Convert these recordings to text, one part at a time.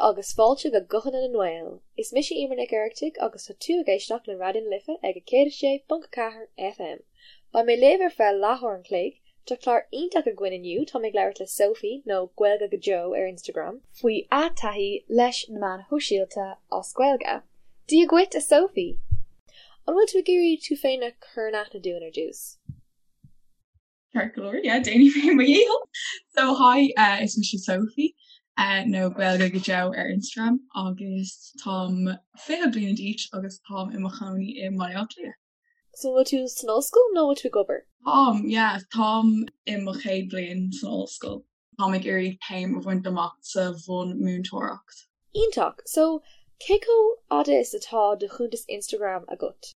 agus fáilte go Guthanna na nGael. Is mise Emer Nic Oireachtaigh agus tá tú ag éisteacht le Raidió na Life ag 106.4 FM. Beidh mé libh ar feadh leathuair an chloig. Tá clár iontach againn inniu, táim ag labhairt le Sophie, nó Gaeilge go Deo ar Instagram, faoi a taithí leis na meáin shóisialta as Gaeilge. Dia dhuit, a Sophie! An bhfuil tú ag iarraidh tú féin a chur in aithne dúinn ar dtús? Ceart go leor, yeah, déanfaidh mé mo dhícheall. So hi, uh, is mise Sophie uh, nó Gaeilge go Deo ar Instagram agus táim 20 bliana d'aois agus táim i mo chónaí i mBaile Átha Cliath. So bhfuil tú san ollscoil nó bhfuil tú ag obair? Táim, yeah, táim i mo chéad bhliain san ollscoil. Táim ag iarraidh céim a bhaint amach sa bhunmhúinteoireacht. Iontach! So, cé chomh fhada is atá do chuntas Instagram agat?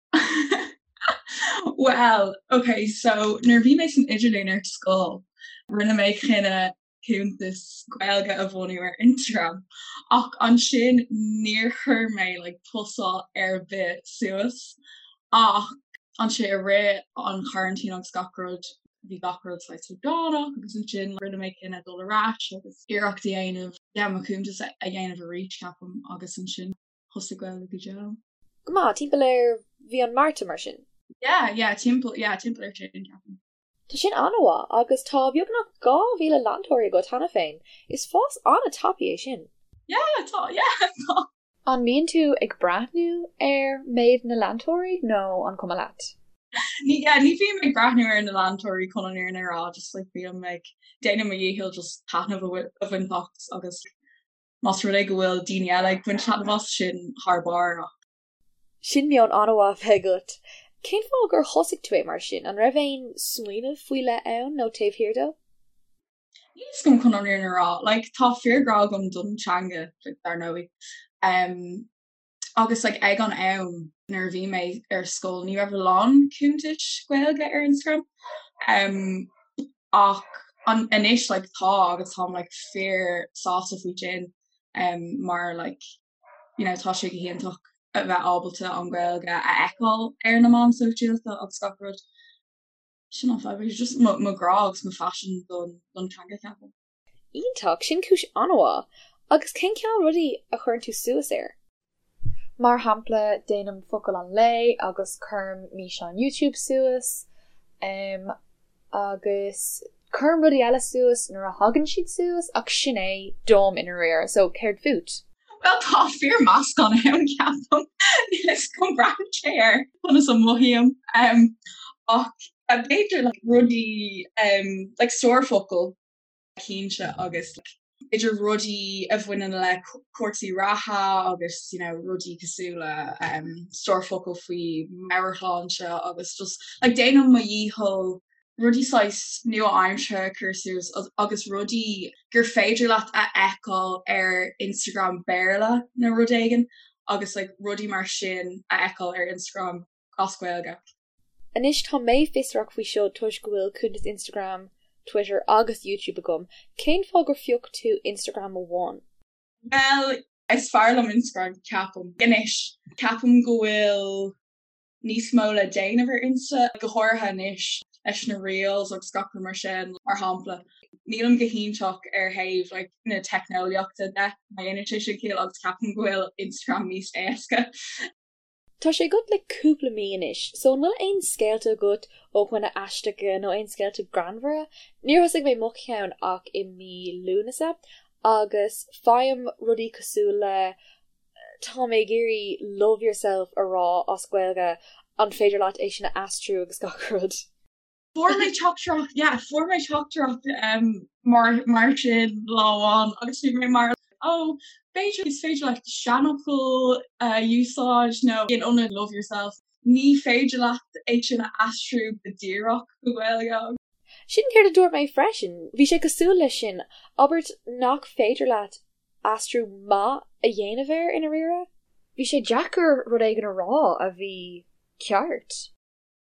Bhuel, ok, so nuair a bhí mé san idirlíon ar scoil, rinne mé cinneadh cuntas Gaeilge a bhunú ar Instagram ach ansin níor chuir mé like postáil ar bith suas ach ansin i rith an choraintín agus gach rud, bhí gach rud saghas logánach agus ansin rinne mé cinneadh dul ar ais agus iarracht a dhéanamh yeah mo chuntas a dhéanamh arís ceapaim agus ansin thosaigh Gaeilge go Deo. Go maith, timpeall ar mhí an Márta mar sin? Yeah, yeah, timpeall, yeah, timpeall ar sin ceapaim. Tá sin an-mhaith agus tá beagnach 2,000 leantóirí agat cheana féin, is fás an-tapaidh é sin. Yeah, tá, yeah, tá. An mbíonn tú ag breathnú ar méid na leantóirí nó an cuma leat? Ní yeah, ní bhím ag breathnú ar na leantóirí chun an fhírinne a rá, just like bím ag déanamh mo dhícheall just taitneamh a bhaint as agus más rud é go bhfuil daoine eile ag baint taitneamh as, sin thar barr ach. Sin meon an-mhaith a bheith agat. Cén fáth gur thosaigh tú é mar sin? An raibh aon smaoineamh faoi leith ann nó taobh thiar dó? Níl a fhios agam chun an fhírinne a rá. Like tá fíorghrá agam don teanga like dar ndóigh. Um, agus like ag an am nuair a bhí mé ar scoil ní raibh a lán cuntais Gaeilge ar Instagram. Um, ach an, anois like tá agus táim like fíor sásta faoi sin um, mar like you know tá sé go hiontach a bheith ábalta an Ghaeilge a fheiceáil ar na meáin sóisialta agus gach rud. Sin an fadhb, just mo mo ghrá agus mo phaisean don don teanga ceapaim. Iontach, sin cúis an-mhaith. Agus cén cineál rudaí a chuireann tú suas air? Mar shampla, déanaim focal an lae agus cuirim físeán YouTube suas agus cuirim rudaí eile suas nuair a thagann siad suas ach sin é dom i ndáiríre, so céard fút? Bhuel tá fíor meascán ann ceapaim. Níl a fhios agam braitheann sé ar conas a mothaím. Ach b'fhéidir like rudaí like stór focal cinnte agus like b'fhéidir rudaí a bhaineann le cúrsaí reatha agus you know rudaí cosúil le stór focal faoi meabhairshláinte agus just like déanaim mo dhícheall rudaí saghas nua-aimseartha a chur suas agus rudaí gur féidir leat a fheiceáil ar Instagram Béarla nó rud éigin agus like rudaí mar sin a fheiceáil ar Instagram as Gaeilge. Anois tá mé fiosrach faoi seo toisc go bhfuil cuntas Instagram, Twitter agus YouTube agam, cén fáth gur phioc tú Instagram amháin? Bhuel, is fearr liom Instagram ceapaim. Anois, ceapaim go bhfuil níos mó le déanamh ar Insta, go háirithe anois leis na reels agus gach rud mar sin, mar shampla. Nílim go hiontach ar thaobh like na teicneolaíochta de, má dhéanann sé sin ciall, agus ceapaim go bhfuil Instagram níos éasca. Tá sé agat le cúpla mí anois, so an bhfuil aon scéalta agat ó dhaoine aisteacha nó aon scéalta greannmhara? Níor thosaigh mé mo cheann ach i mí Lúnasa agus faighim rudaí cosúil le Tá mé ag iarraidh love yourself a rá as Gaeilge, an féidir leat é sin a aistriú agus gach rud? Fuair mé teachtaireacht, yeah, fuair mé teachtaireacht um, mar, mar sin lá amháin agus bhí mé mar oh, b'fhéidir is féidir leat seanfhocal a úsáid nó in ionad love yourself. Ní féidir leat é sin a aistriú go díreach go Gaeilge. Sin céard a dúirt mé freisin. Bhí sé cosúil leis sin, abairt nach féidir leat aistriú maith a dhéanamh air i ndáiríre. Bhí sé deacair rud éigin a rá a bhí ceart.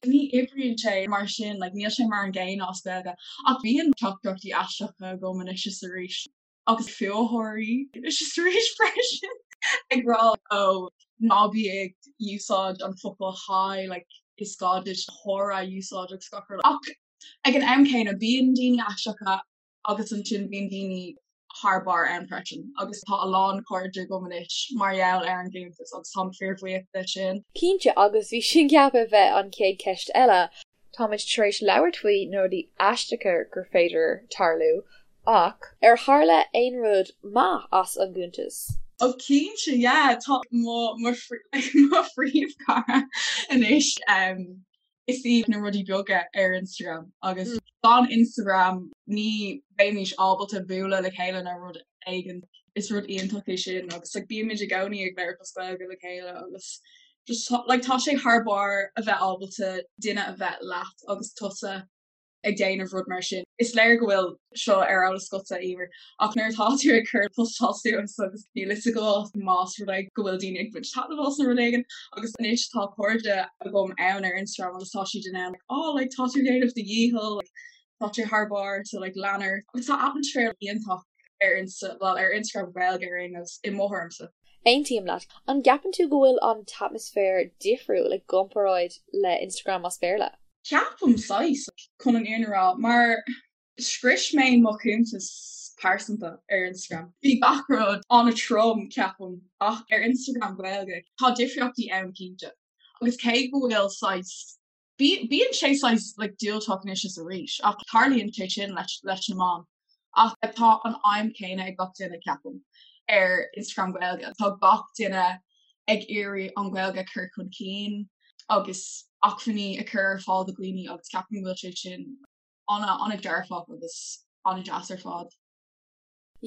Ní oibríonn sé mar sin, like níl sé mar an gcéanna as Gaeilge. Ach bíonn teachtaireachtaí aisteacha agam anois is arís, agus fuathóirí anois is arís freisin, ag rá oh ná bí ag úsáid an focal hi, like is gá duit chara a úsáid agus gach rud. Ach ag an am céanna bíonn daoine aisteacha agus ansin bíonn daoine. thar barr ann freisin agus tá a lán cairde agam anois mar gheall ar an gcuntas agus táim fíorbhuíoch de sin. Cinnte, agus bhí sin ceaptha a bheith an chéad cheist eile. Táimid tar éis labhairt faoi na rudaí aisteacha gur féidir tarlú, ach ar tharla aon rud maith as an gcuntas? Oh cinnte, yeah, tá mo mo mo phríomhchara anois. Is í na rudaí beaga ar Instagram agus gan Instagram ní bheimís ábalta bualadh le chéile nó rud éigin. Is rud iontach é sin agus like bímid i gcónaí ag labhairt as Gaeilge le chéile agus just like tá sé thar barr a bheith ábalta duine a bheith leat agus tusa ag déanamh rud mar sin. Is léir go bhfuil seo ar eolas agatsa, Emer, ach nuair atá tú ag cur postáil suas agus níl fhios agat más rud é go bhfuil daoine ag baint taitneamh as nó rud éigin agus anois tá cairde agam ann ar Instagram agus tá siad in ann like oh like tá tú ag déanamh do dhícheall like tá sé thar barr so like lean ort agus tá atmaisféar iontach ar Insta well ar Instagram Gaeilge ar aon nós i mo thuairimse. Aontaím leat. An gceapann tú go bhfuil an t-atmaisféar difriúil i gcomparáid le Instagram as Béarla? Ceapaim saghas, chun an fhírinne a rá, mar scrios mé mo chuntas pearsanta ar Instagram. Bhí gach rud an-trom, ceapaim, ach ar Instagram Gaeilge, tá difríochtaí ann cinnte. Agus cé go bhfuil saghas Bíonn sé saghas like diúltach anois is arís ach tarlaíonn sé sin leis leis na meáin. Ach tá an aidhm céanna ag gach duine ceapaim ar Instagram Gaeilge. Tá gach duine ag iarraidh an Ghaeilge a chur chun cinn agus acmhainní a chur ar fáil do dhaoine agus ceapaim go bhfuil sé sin an-an-dearfach agus an-deas ar fad.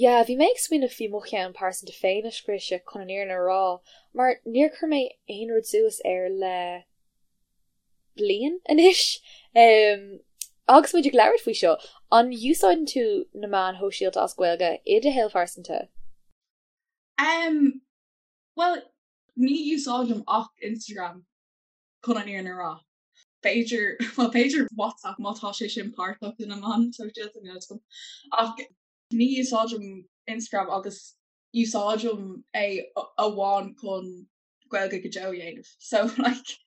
Yeah, bhí mé ag smaoineamh faoi mo cheann pearsanta féin a scriosadh chun an fhírinne a rá, mar níor chuir mé aon rud suas air le bliain anois. Agus muid ag labhairt faoi seo, an úsáideann tú na meáin shóisialta as Gaeilge i do shaol phearsanta? Um, bhuel, ní úsáidim ach Instagram chun an fhírinne a rá. B'fhéidir, bhuel b'fhéidir WhatsApp má tá sé sin páirteach de na meáin shóisialta, níl 'fhios agam. Ach ní úsáidim Instagram agus úsáidim é amháin chun Gaeilge go deo a dhéanamh. So like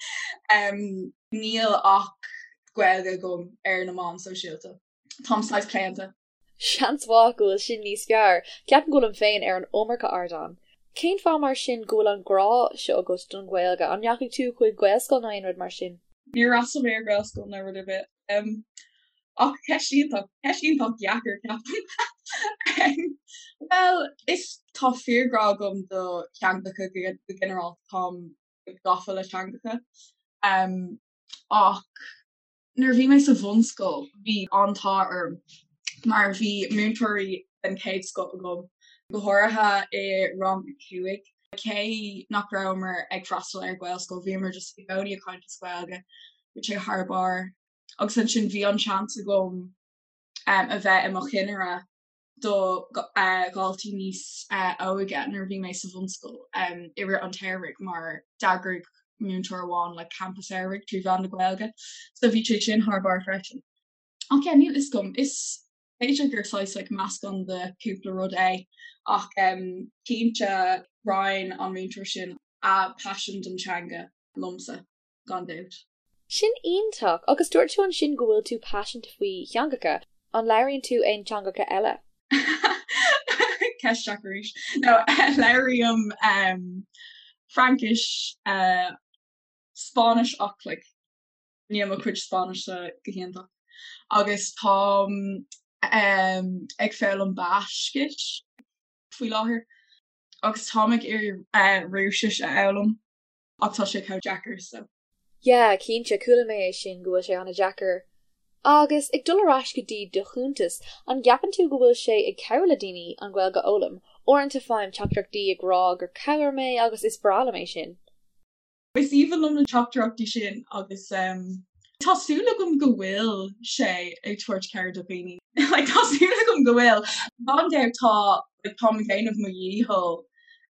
um, níl ach Gaeilge agam ar na meáin sóisialta. Táim saghas claonta. Seans mhaith go bhfuil sin níos fearr. Ceapaim go bhfuilim féin ar an iomarca ardán. Cén fáth mar sin go bhfuil an grá seo agat don Ghaeilge? An ndeachaigh tú chuig Gaelscoil nó aon rud mar sin? Níor fhreastail mé ar Ghaelscoil nó rud ar bith. Ach ceist iontach, ceist iontach dheacair, ceapaim. Bhuel, is tá fíorghrá agam do theangacha go ginearálta, táim gafa le teangacha. Ach Nuair a bhí mé sa bhunscoil bhí an t-ádh orm mar bhí múinteoirí den chéad scoth agam, go háirithe i rang a 5. Cé nach rabhamar ag freastal ar Ghaelscoil bhíomar just i gcónaí ag caint as Gaeilge, bhí sé thar barr. Agus ansin bhí an seans agam a bheith i mo chinnire do dhaltaí níos óige nuair a bhí mé sa bhunscoil i rith an tsamhraidh mar d'eagraigh múinteoir amháin like campa samhraidh trí mheán na Gaeilge so bhí sé sin thar barr freisin. Ach yeah níl fhios agam, is b'fhéidir gur saghas like meascán de cúpla rud é ach cinnte roinn an múinteoir sin a paisean don teanga liomsa. gan dabht. Sin iontach! Agus dúirt tú ansin go bhfuil tú paiseanta faoi theangacha. An labhraíonn tú aon teangacha eile? Ceist deacair arís. No, labhraím Fraincis, Spáinnis ach like níl mo chuid Spáinnise go hiontach. Agus táim ag foghlaim Baiscis faoi láthair agus táim ag iarraidh Rúisis a fhoghlaim. Ach tá sé chomh deacair so. Yeah, cinnte, chuala mé é sin, go bhfuil sé an-deacair. Agus ag dul ar ais go dtí do chuntas, an gceapann tú go bhfuil sé ag cabhrú le daoine an Ghaeilge a fhoghlaim? Uaireanta faighim teachtaireachtaí ag rá gur chabhraigh mé agus is breá liom é sin. Is aoibhinn liom na teachtaireachtaí sin agus tá súil agam go bhfuil sé ag tabhairt cabhair do dhaoine. Like tá súil agam go bhfuil. Gan dabht tá like táim ag déanamh mo dhícheall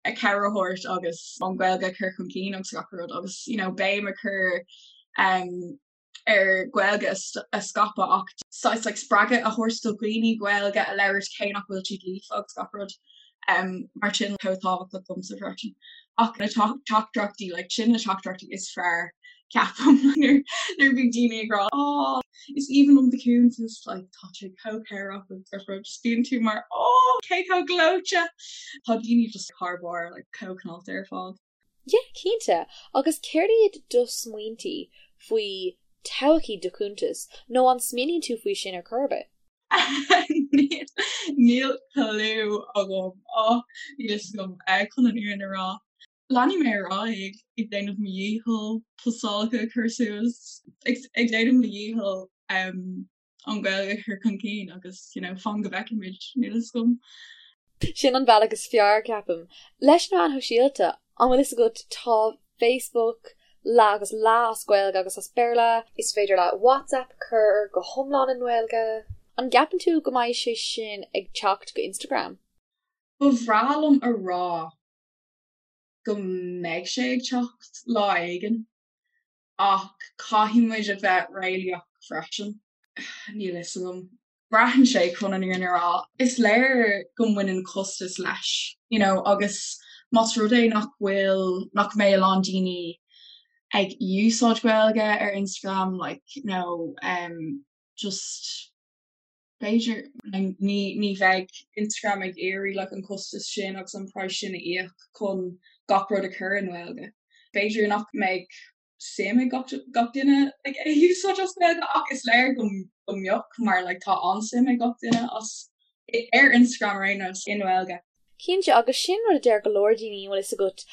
a cabhair a thabhairt agus an Ghaeilge a chur chun cinn agus gach rud agus you know béim a chur um, ar Ghaeilge a scaipeadh ach saghas like spreagadh a thabhairt do dhaoine Gaeilge a labhairt cé nach bhfuil siad líofa agus gach rud um, mar sin chomh tábhachtach domsa freisin. Ach na teachtaireachtaí like sin na teachtaireachtaí is fearr. Ceapaim nuair a bhí daoine ag rá oh is aoibhinn liom do chuntas like tá sé chomh cabhrach agus gach rud just bíonn tú mar oh cé chomh gleoite tá daoine just thar barr like chomh cineálta ar fad. Yeah cinnte agus céard iad do smaointí faoi todhchaí do chuntais nó an smaoiníonn tú faoi sin ar chor ar bith? Níl clue agam oh níl fhios agam chun an fhírinne a rá. Leanfaidh mé ar aghaidh ag déanamh mo dhícheall postálacha a chur suas, ag déanamh mo dhícheall an Ghaeilge a chur chun cinn agus you know fan go bhfeicfimid, níl fhios agam. Sin an bealach is fearr, ceapaim. Leis na meáin shóisialta, an bhfuil fhios agat, tá Facebook leath agus leath as Gaeilge agus as Béarla. Is féidir leat WhatsApp a chur go hiomlán i nGaeilge. An gceapann tú go mbeidh sé sin ag teacht go Instagram? Ba bhreá liom a rá go mbeidh sé ag teacht lá éigin ach caithfidh muid a bheith réalaíoch freisin. Níl fhios agam. Braitheann sé chun an fhírinne a rá. Is léir go mbaineann costas leis, you know, agus más rud é nach bhfuil, nach mbeidh a lán daoine ag úsáid Gaeilge ar Instagram, like, you know, um, just B'fhéidir, ní bheidh Instagram ag iarraidh like an costas sin agus an praghas sin a íoc chun gach rud a chur i nGaeilge. B'fhéidir nach mbeidh suim ag gach duine like é a úsáid as Gaeilge ach is léir go mbeadh mar like tá an-suim ag gach duine as ar Instagram ar aon nós i nGaeilge. Cinnte, agus sin rud a deir go leor daoine, an bhfuil fhios agat,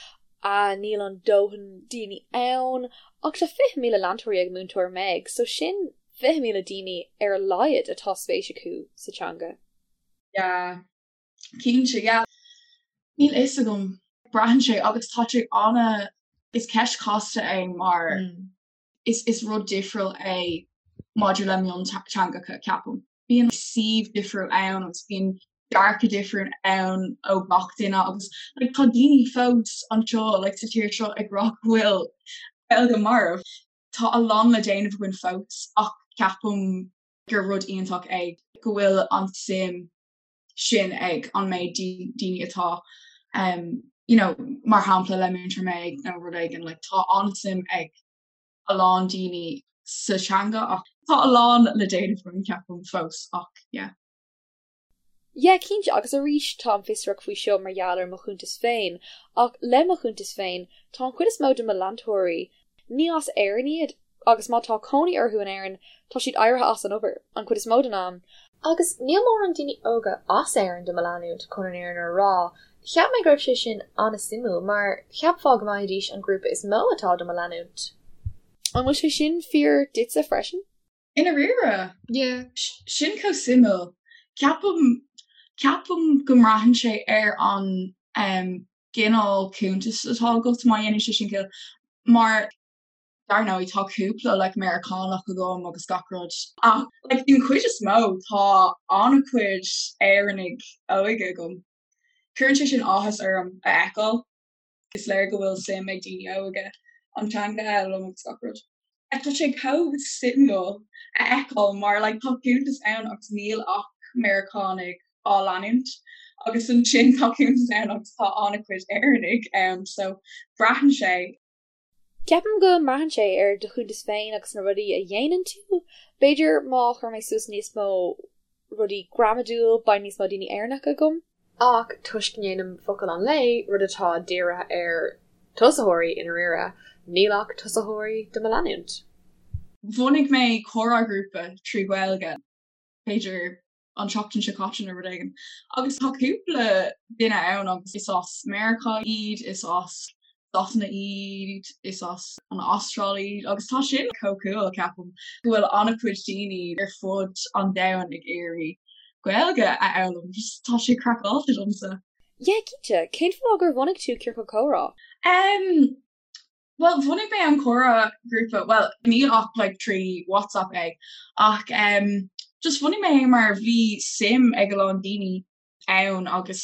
ah níl an dóthain daoine ann, ach tá 20,000 leantóirí ag Múinteoir Meg, so sin 20,000 daoine ar a laghad atá spéis acu sa teanga. Yeah, cinnte, yeah. Níl fhios agam. Braitheann sé agus tá sé ana, is ceist chasta é mar is is rud difriúil é maidir le mionteangacha, ceapaim. Bíonn suíomh difriúil ann agus bíonn dearcadh difriúil ann ó gach duine agus like tá daoine fós anseo like sa tír seo ag rá go bhfuil Gaeilge marbh. Tá a lán le déanamh againn fós ach ceapaim gur rud iontach é go bhfuil an suim sin ag an méid daoine atá um you know mar shampla le Múinteoir Meg nó rud éigin like tá an-suim ag a lán daoine sa teanga ach tá a lán le déanamh againn ceapaim fós ach yeah. Yeah cinnte agus arís táim fiosrach faoi seo mar gheall ar mo chuntas féin ach le mo chuntas féin tá an chuid is mó de mo leantóirí ní as Éirinn iad agus má tá cónaí orthu in Éirinn tá siad éirithe as an obair an chuid is mó den am. Agus níl mórán daoine óga as Éirinn do mo leanúint chun an fhírinne a rá. Cheap mé go raibh sé sin an-suimiúil mar cheapfá go mbeidís an grúpa is mó atá do mo leanúint. An bhfuil sé sin fíor duitse freisin? I ndáiríre? Yeah. Sin chomh suimiúil. Ceapaim, ceapaim go mbraitheann sé ar an gcineál cuntais atá agat, má dhéanann sé sin ciall. Mar dar ndóigh tá cúpla like Meiriceánach agam agus gach rud ach like den chuid is mó tá an-chuid Éireannaigh óga agam. Cuireann sé sin áthas orm a fheiceáil. Is léir go bhfuil suim ag daoine óga an teanga a fhoghlaim agus gach rud. Tá sé chomh suimiúil a fheiceáil mar like tá cuntas ann agus níl ach Meiriceánaigh á leanúint agus ansin tá cuntas ann agus tá an-chuid Éireannaigh ann so braitheann sé. Ceapaim go mbraitheann sé ar do chuntas féin agus na rudaí a dhéanann tú. B'fhéidir má chuir mé suas níos mó rudaí gramadúil beidh níos mó daoine Éireannacha agam. Ach toisc go ndéanaim focal an lae, rud atá dírithe ar tosaitheoirí i ndáiríre, níl ach tosaitheoirí do mo leanúint. Bhunaigh mé comhrá grúpa trí Ghaeilge, b'fhéidir an tseachtain seo caite nó rud éigin. Agus tá cúpla duine ann agus is as Meiriceá iad, is as Sasana iad, is as an Astráil iad agus tá sin chomh cool ceapaim go bhfuil an-chuid daoine ar fud an domhain ag iarraidh Gaeilge a fhoghlaim. Just tá sé craiceáilte domsa. Yeah, cinnte. Cén fáth gur bhunaigh tú Ciorcal Comhrá? Um, Bhuel, bhunaigh mé an comhrá grúpa, bhuel, níl ach like trí WhatsApp é, ach em just bhunaigh mé é mar bhí suim ag a lán daoine ann agus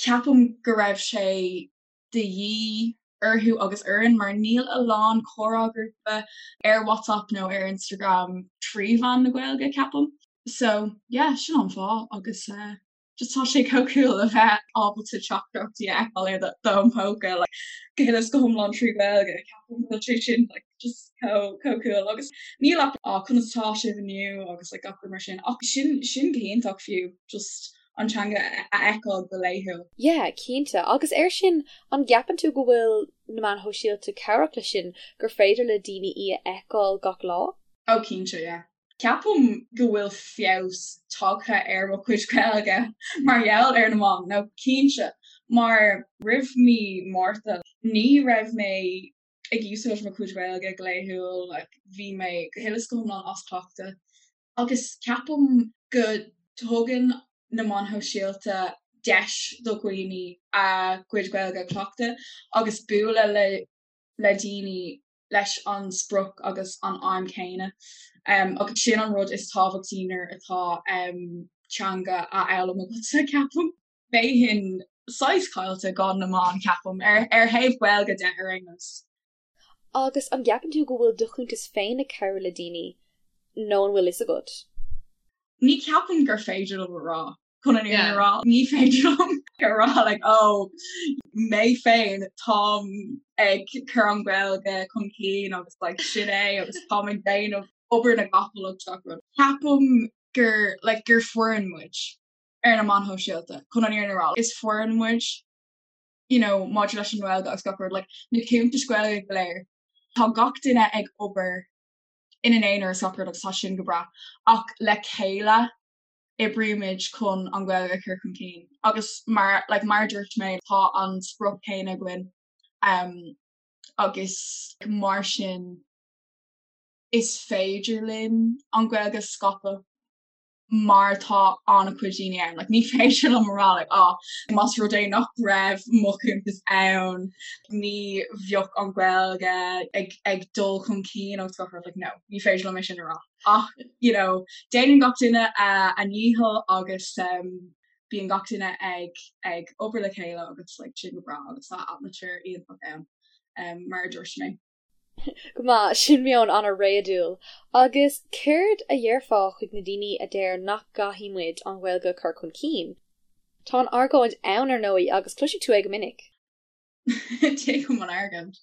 ceapaim go raibh sé de dhíth orthu agus orainn mar níl a lán comhrá grúpa ar WhatsApp nó ar Instagram trí mheán na Gaeilge, ceapaim. So, yeah, sin an fáth agus eh Just tá sé chomh cool a bheith ábalta teachtaireachtaí a fheiceáil ar d'fhón póca like go huile is go hiomlán trí Ghaeilge. Ceapaim go bhfuil sé sin like Just chomh chomh cool agus níl ach ah conas atá sibh inniu agus like gach rud mar sin ach sin sin go hiontach fiú just an teanga a fheiceáil go laethúil. Yeah, cinnte. Agus air sin, an gceapann tú go bhfuil na meáin shóisialta cabhrach leis sin, gur féidir le daoine í a fheiceáil gach lá? Oh cinnte, yeah. Ceapaim go bhfuil feabhas tagtha ar mo chuid Gaeilge mar gheall ar na meáin, no cinnte, mar roimh mí Márta ní raibh mé ag úsáid mo chuid Gaeilge go laethúil, like bhí mé go huile is go hiomlán as cleachtadh agus ceapaim go dtugann na meáin shóisialta deis do dhaoine a gcuid Gaeilge a chleachtadh agus bualadh le le daoine leis an sprioc agus an aidhm chéanna. Agus sin an rud is tábhachtaí nuair atá teanga á fhoghlaim agatsa, ceapaim. Bheinn saghas caillte gan na meáin, ceapaim, ar thaobh Gaeilge de ar aon nós. Agus an gceapann tú go bhfuil do chuntas féin ag cabhrú le daoine nó an bhfuil fhios agat? Ní cheapaim gur féidir liom a rá. chun an fhírinne a rá, ní féidir liom a rá like oh mé féin táim ag cur an Ghaeilge chun cinn agus like sin é agus táim ag déanamh obair na gcapall agus gach rud. Ceapaim gur like gur foireann muid ar na meáin shóisialta chun an fhírinne a rá. Is foireann muid you know maidir leis an nGaeilge agus gach rud like na cuntais Ghaeilge go léir tá gach duine ag obair ina n-aonar agus gach rud agus tá sin go breá ach le chéile oibrímid chun an Ghaeilge a chur chun cinn agus mar like mar a dúirt mé tá an sprioc céanna againn um, agus mar sin is féidir linn an Ghaeilge a scaipeadh mar tá an-chuid daoine ann. Like, ní féidir liom a rá like, oh, más rud é nach raibh mo chuntas ann, ní bheadh an Ghaeilge ag, ag dul chun cinn agus gach rud like, no, ní féidir liom é sin a rá. Ach, you know, déanann gach duine a ndícheall agus um, bíonn gach duine ag, ag obair le chéile agus like, sin go breá agus tá atmaisféar iontach ann, um, mar a dúirt mé. Go maith, sin meon an-réadúil. Agus céard a dhéarfá chuig na daoine a deir nach gcaithfidh muid an Ghaeilge a chur chun cinn? Tá an argóint ann, ar ndóigh, agus cloisfidh tú é go minic. Tuigim an argóint,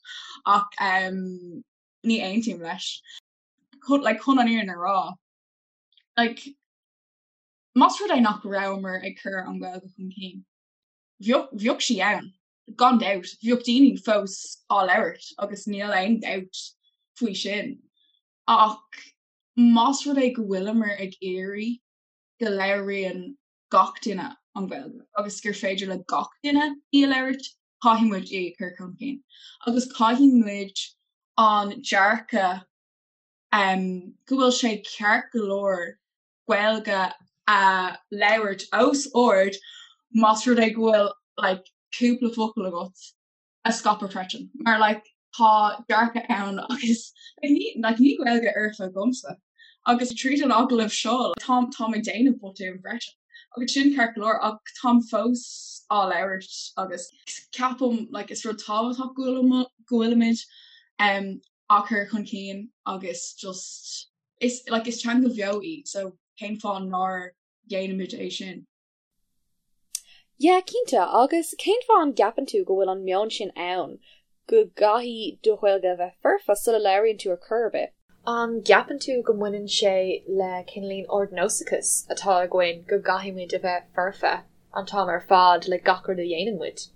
ach um, ní aontaím leis. Like, chun an fhírinne a rá, like, más rud é nach rabhamar ag cur an Ghaeilge chun cinn, bheadh, bheadh sí ann, gan dabht, bheadh daoine fós á labhairt agus níl aon dabht faoi sin. Ach más rud é go bhfuileamar ag iarraidh go labhraíonn gach duine an Ghaeilge agus gur féidir le gach duine í a labhairt, caithfidh muid í a chur chun cinn. Agus caithfidh muid an dearcadh go bhfuil sé ceart go leor Gaeilge a labhairt os ard más rud é go bhfuil like cúpla focal agat a scaipeadh freisin. Mar like tá dearcadh ann agus like ní like níl Gaeilge fhoirfe agamsa agus tríd an agallamh seo táim táim ag déanamh botúin freisin agus sin ceart go leor ach táim fós á labhairt agus ceapaim like is rud tábhachtach go bhfuil go bhfuilimid um á cur chun cinn agus just is like is teanga bheo í so cén fáth nár dhéanaimid é sin? Yeah, cinnte, agus cén fáth an gceapann tú go bhfuil an meon sin ann, go gcaithfidh do Ghaeilge a bheith foirfe sula labhraíonn tú ar chor ar bith? An gceapann tú go mbaineann sé le cineáilín ardnósachas atá againn go gcaithfidh muid a bheith foirfe an t-am ar fad le gach rud a dhéanann muid?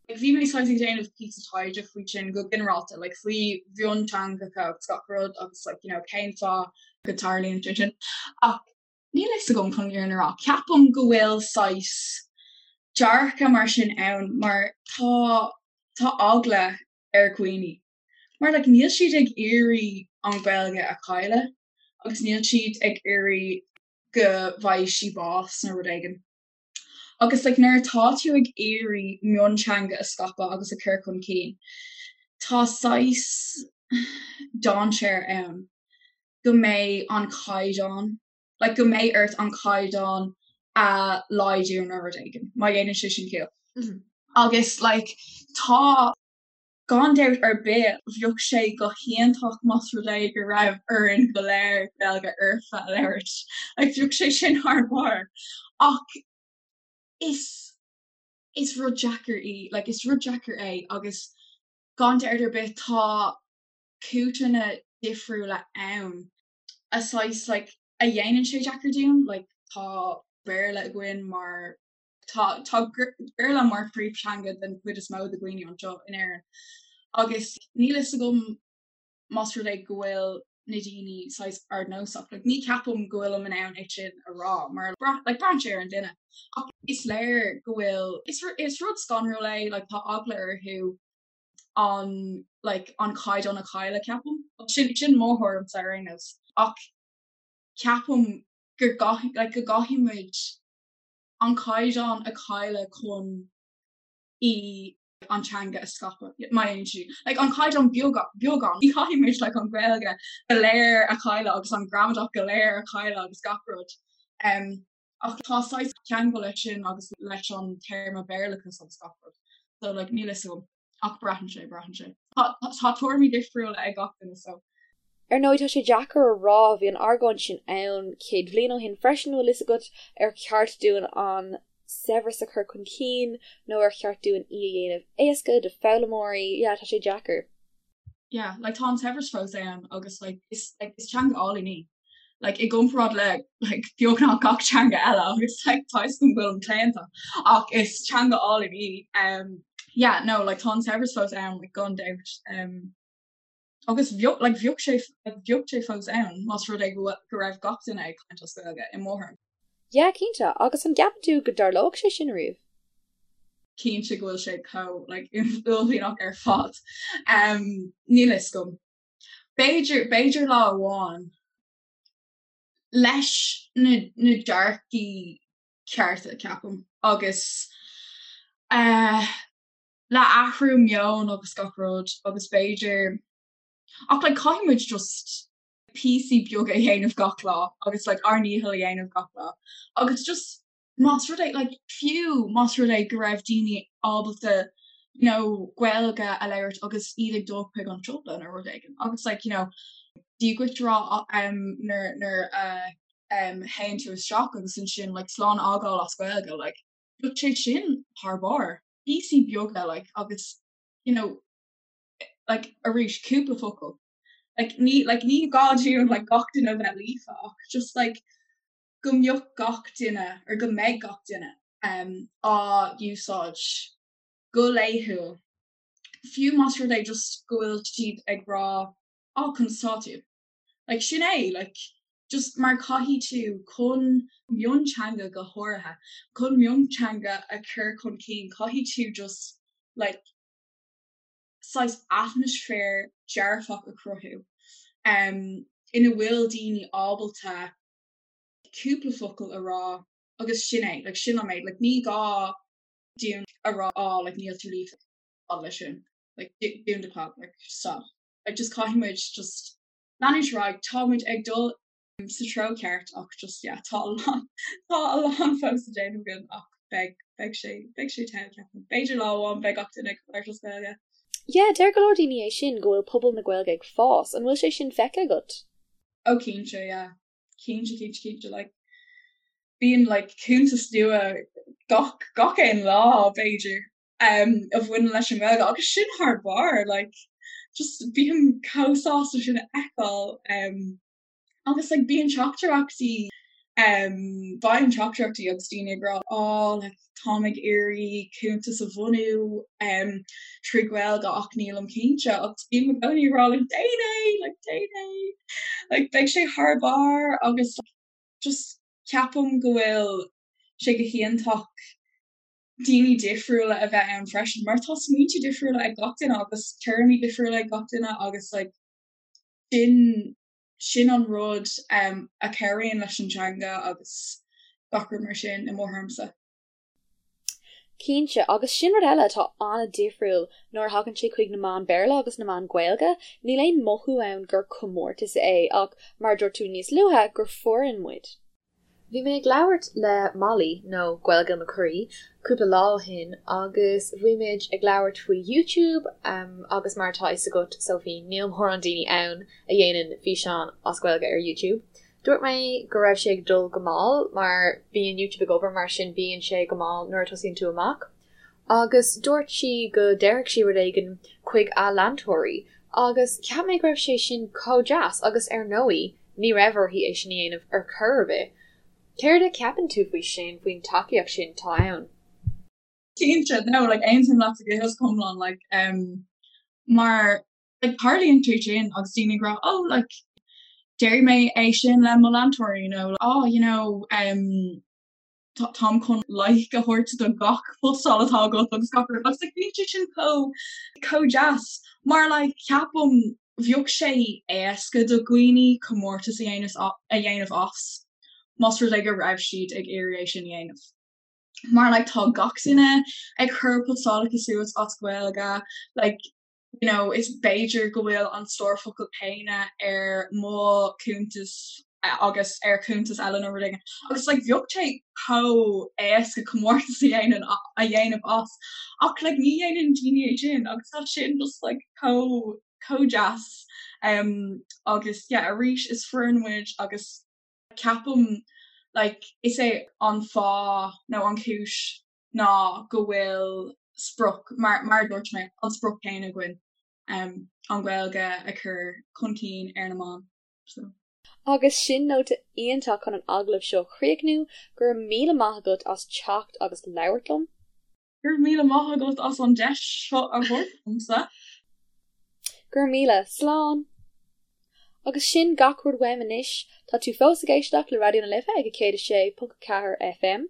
Like bhí mé saghas ag déanamh píosa taighde faoi sin go ginearálta, like faoi mhionteangacha agus gach rud agus like you know cén fáth go dtarlaíonn sé sin. Ach Níl a fhios agam chun an fhírinne a rá. Ceapaim go bhfuil saghas dearcadh mar sin ann mar tá tá eagla ar dhaoine mar like níl siad ag iarraidh an Ghaeilge a chailleadh agus níl siad ag iarraidh go bhfaighidh sí bás nó rud éigin. Agus like nuair atá tú ag iarraidh mionteanga a scaipeadh agus a chur chun cinn tá saghas dainséar ann go mbeidh an caighdeán, like go mbeidh ort an caighdeán a laghdú nó rud éigin, má dhéanann sé sin ciall. Agus like tá, gan dabht ar bith, bheadh sé go hiontach más rud é go raibh orainn go léir Gaeilge fhoirfe a labhairt, like bheadh sé sin thar barr. Ach is, is rud deacair í, like is rud deacair é agus gan dabht ar bith tá. cúiseanna difriúla ann a saghas like a dhéanann sé deacair dúinn like tá Béarla againn mar tá tá Béarla mar phríomhtheanga den chuid is mó de dhaoine anseo in Éirinn agus níl fhios agam más rud é go bhfuil na daoine saghas ardnósach. Like, ní ceapaim go bhfuilim in ann é sin a rá mar like, braitheann sé ar an duine. Ach is léir go bhfuil is, is rud scanrúil é like, tá eagla orthu an like, an caighdeán a chailleadh ceapaim. Sin, sin mo thuairimse ar aon nós. Ach ceapaim gur like, go gcaithfidh muid an caighdeán a chailleadh chun í an teanga a scaipeadh. Má dhéanann sí like an caighdeán beagán ní chaithfidh muid like an Ghaeilge go léir a chailleadh agus an gramadach go léir a chailleadh agus gach rud. Um, ach tá saghas ceangal leis sin agus leis an téarma Béarlachas agus gach rud. So like níl fhios agam ach braitheann sé braitheann sé. Tá tuairimí difriúla ag gach duine so. Ar ndóigh tá sé deacair a rá, bhí an argóint sin ann 100 bhliain ó shin freisin, bhfuil fhios agat, ar cheart dúinn an saibhreas a chur chun cinn nó ar cheart dúinn í a dhéanamh éasca do foghlaimeoirí, yeah tá sé deacair. Yeah, like tá an saibhreas fós ann agus like is like is teanga álainn í. Like i gcomparáid le like beagnach gach teanga eile agus like tá fhios agam go bhfuilim claonta ach is teanga álainn í. Um, yeah, no, like tá an saibhreas fós ann like gan dabht. Um, Agus bheadh, like, bheadh sé, like, bheadh sé fós ann más rud é go bhfuil, go raibh gach duine ag caint as Gaeilge, i mo thuairim. Yeah, cinnte. Agus an gceapann tú go dtarlóidh sé sin riamh? Cinnte go bhfuil sé chomh, like, uaillmhianach ar fad. Um, níl fhios agam. B'fhéidir, b'fhéidir lá amháin, leis na, na dearcaí cearta, ceapaim, agus, eh, le athrú meoin agus gach rud agus b'fhéidir ach like caithfidh muid just píosaí beaga a dhéanamh gach lá agus like ár ndícheall a dhéanamh gach lá agus just más rud é like fiú más rud é go raibh daoine ábalta you know Gaeilge a labhairt agus iad ag dul chuig an siopa nó rud éigin agus like you know Dia duit a rá um, nuair nuair a um, théann tú isteach agus ansin like slán a fhágáil as Gaeilge like bheadh sé sin thar barr. Píosaí beaga like agus you know like arís cúpla focal. Like ní like ní gá dúinn like gach duine a bheith líofa ach just like go mbeadh gach duine or go mbeidh gach duine um á úsáid go laethúil. Fiú más rud é just go bhfuil siad ag rá á conas tá tú? Like sin é, like just mar caithfidh tú chun mionteanga go háirithe, chun mionteanga a chur chun cinn caithfidh tú just like saghas atmaisféar dearfach a chruthú um ina bhfuil daoine ábalta cúpla focal a rá agus sin é, like sin an méid, like ní gá dúinn a rá á like níl tú líofa leis sin, like dún do chlab, like stop. Like just caithfidh muid just leanúint ar aghaidh, tá muid ag dul sa treo ceart ach just yeah tá a lán tá a lán fós le déanamh againn ach beidh beidh sé beidh sé togha ceapaim. B'fhéidir lá amháin beidh gach duine ag labhairt as Gaeilge. Yeah, deir go leor daoine é sin, go bhfuil pobal na Gaeilge ag fás. An bhfuil sé sin feicthe agat? Oh cinnte, yeah. Cinnte, cinnte, cinnte. Like bíonn like cuntas nua gach gach aon lá b'fhéidir. um, a bhaineann leis an nGaeilge agus sin thar barr like, just bím chomh sásta sin a fheiceáil um, agus like, bíonn teachtaireachtaí um, bíonn teachtaireachtaí agus daoine ag rá oh, like, táim ag iarraidh cuntas a bhunú um, trí Ghaeilge ach nílim cinnte agus bím i gcónaí ag rá like, déan é like, déan é like, beidh sé thar barr agus like, just ceapaim go bhfuil sé go hiontach daoine difriúla a bheith ann freisin mar tá smaointe difriúla ag gach duine agus tuairimí difriúla ag gach duine agus like sin sin an rud um, a chabhraíonn leis an teanga agus gach rud mar sin i mo thuairimse. Cinnte, agus sin rud eile atá an-difriúil nuair a thagann sé chuig na meáin Béarla agus na meáin Gaeilge, níl aon mothú ann gur comórtas é ach, mar a dúirt tú níos luaithe, gur foireann muid. Bhí mé ag labhairt le Molly, nó Gaeilge mo Chroí, cúpla lá ó shin agus bhí muid ag labhairt faoi YouTube agus mar atá fhios agat, Sophie, níl mórán daoine ann a dhéanann físeáin as Gaeilge ar YouTube. Dúirt mé go raibh sé ag dul go mall mar bíonn YouTube ag obair mar sin bíonn sé go mall nuair a tosaíonn tú amach. Agus dúirt sí go déarfadh sí rud éigin chuig a leantóirí. Agus cheap mé go raibh sé sin chomh deas agus ar ndóigh ní raibh uirthi é sin a dhéanamh ar chor ar bith. Céard a cheapann tú faoi sin, faoin tacaíocht sin atá ann? Cinnte, no, like aontaím leat go hiomlán, like um, mar like tarlaíonn sé sin agus daoine ag rá oh like déarfaidh mé é sin le mo leantóirí nó oh you know um, táim chun like a thabhairt do gach postáil atá agat agus gach rud agus like bíonn sé sin chomh chomh deas mar like ceapaim bheadh sé éasca do dhaoine comórtas a dhéanamh a dhéanamh as más rud é go raibh siad ag iarraidh é sin a dhéanamh. Mar like tá gach duine ag cur postálacha suas as Gaeilge like you know, is b'fhéidir go bhfuil an stór focal céanna ar mo chuntas agus ar chuntas eile nó rud éigin. Agus like, bheadh sé chomh éasca comórtas a dhéanamh a dhéanamh as ach like, ní dhéanann daoine é sin agus tá sin just like, chomh chomh deas um, agus yeah, arís is foireann muid agus ceapaim like, is é an fáth nó an chúis ná go bhfuil sprioc, mar mar a dúirt mé, an sprioc céanna againn, an Ghaeilge a chur chun cinn ar na meáin. So. Agus sin nóta iontach chun an agallamh seo a chríochnú, go raibh míle maith agat as teacht agus labhairt liom. Go raibh míle maith agat as an deis seo a thabhairt domsa. Go raibh míle. Slán! Agus sin gach rud uaim anois. Tá tú fós ag éisteacht le Raidió na Life ag 106.4 FM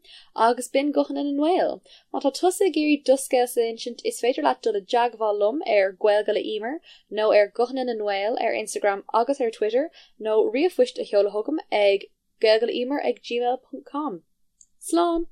agus b'in Guthanna na nGael. Má tá tusa ag iarraidh do scéalsa a insint is féidir leat dul i dteagmháil liom ar Gaeilge le Emer nó ar Guthanna na nGael ar Instagram agus ar Twitter nó ríomhphoist a sheoladh chugam ag gaeilgeleemer ag gmail.com. Slán!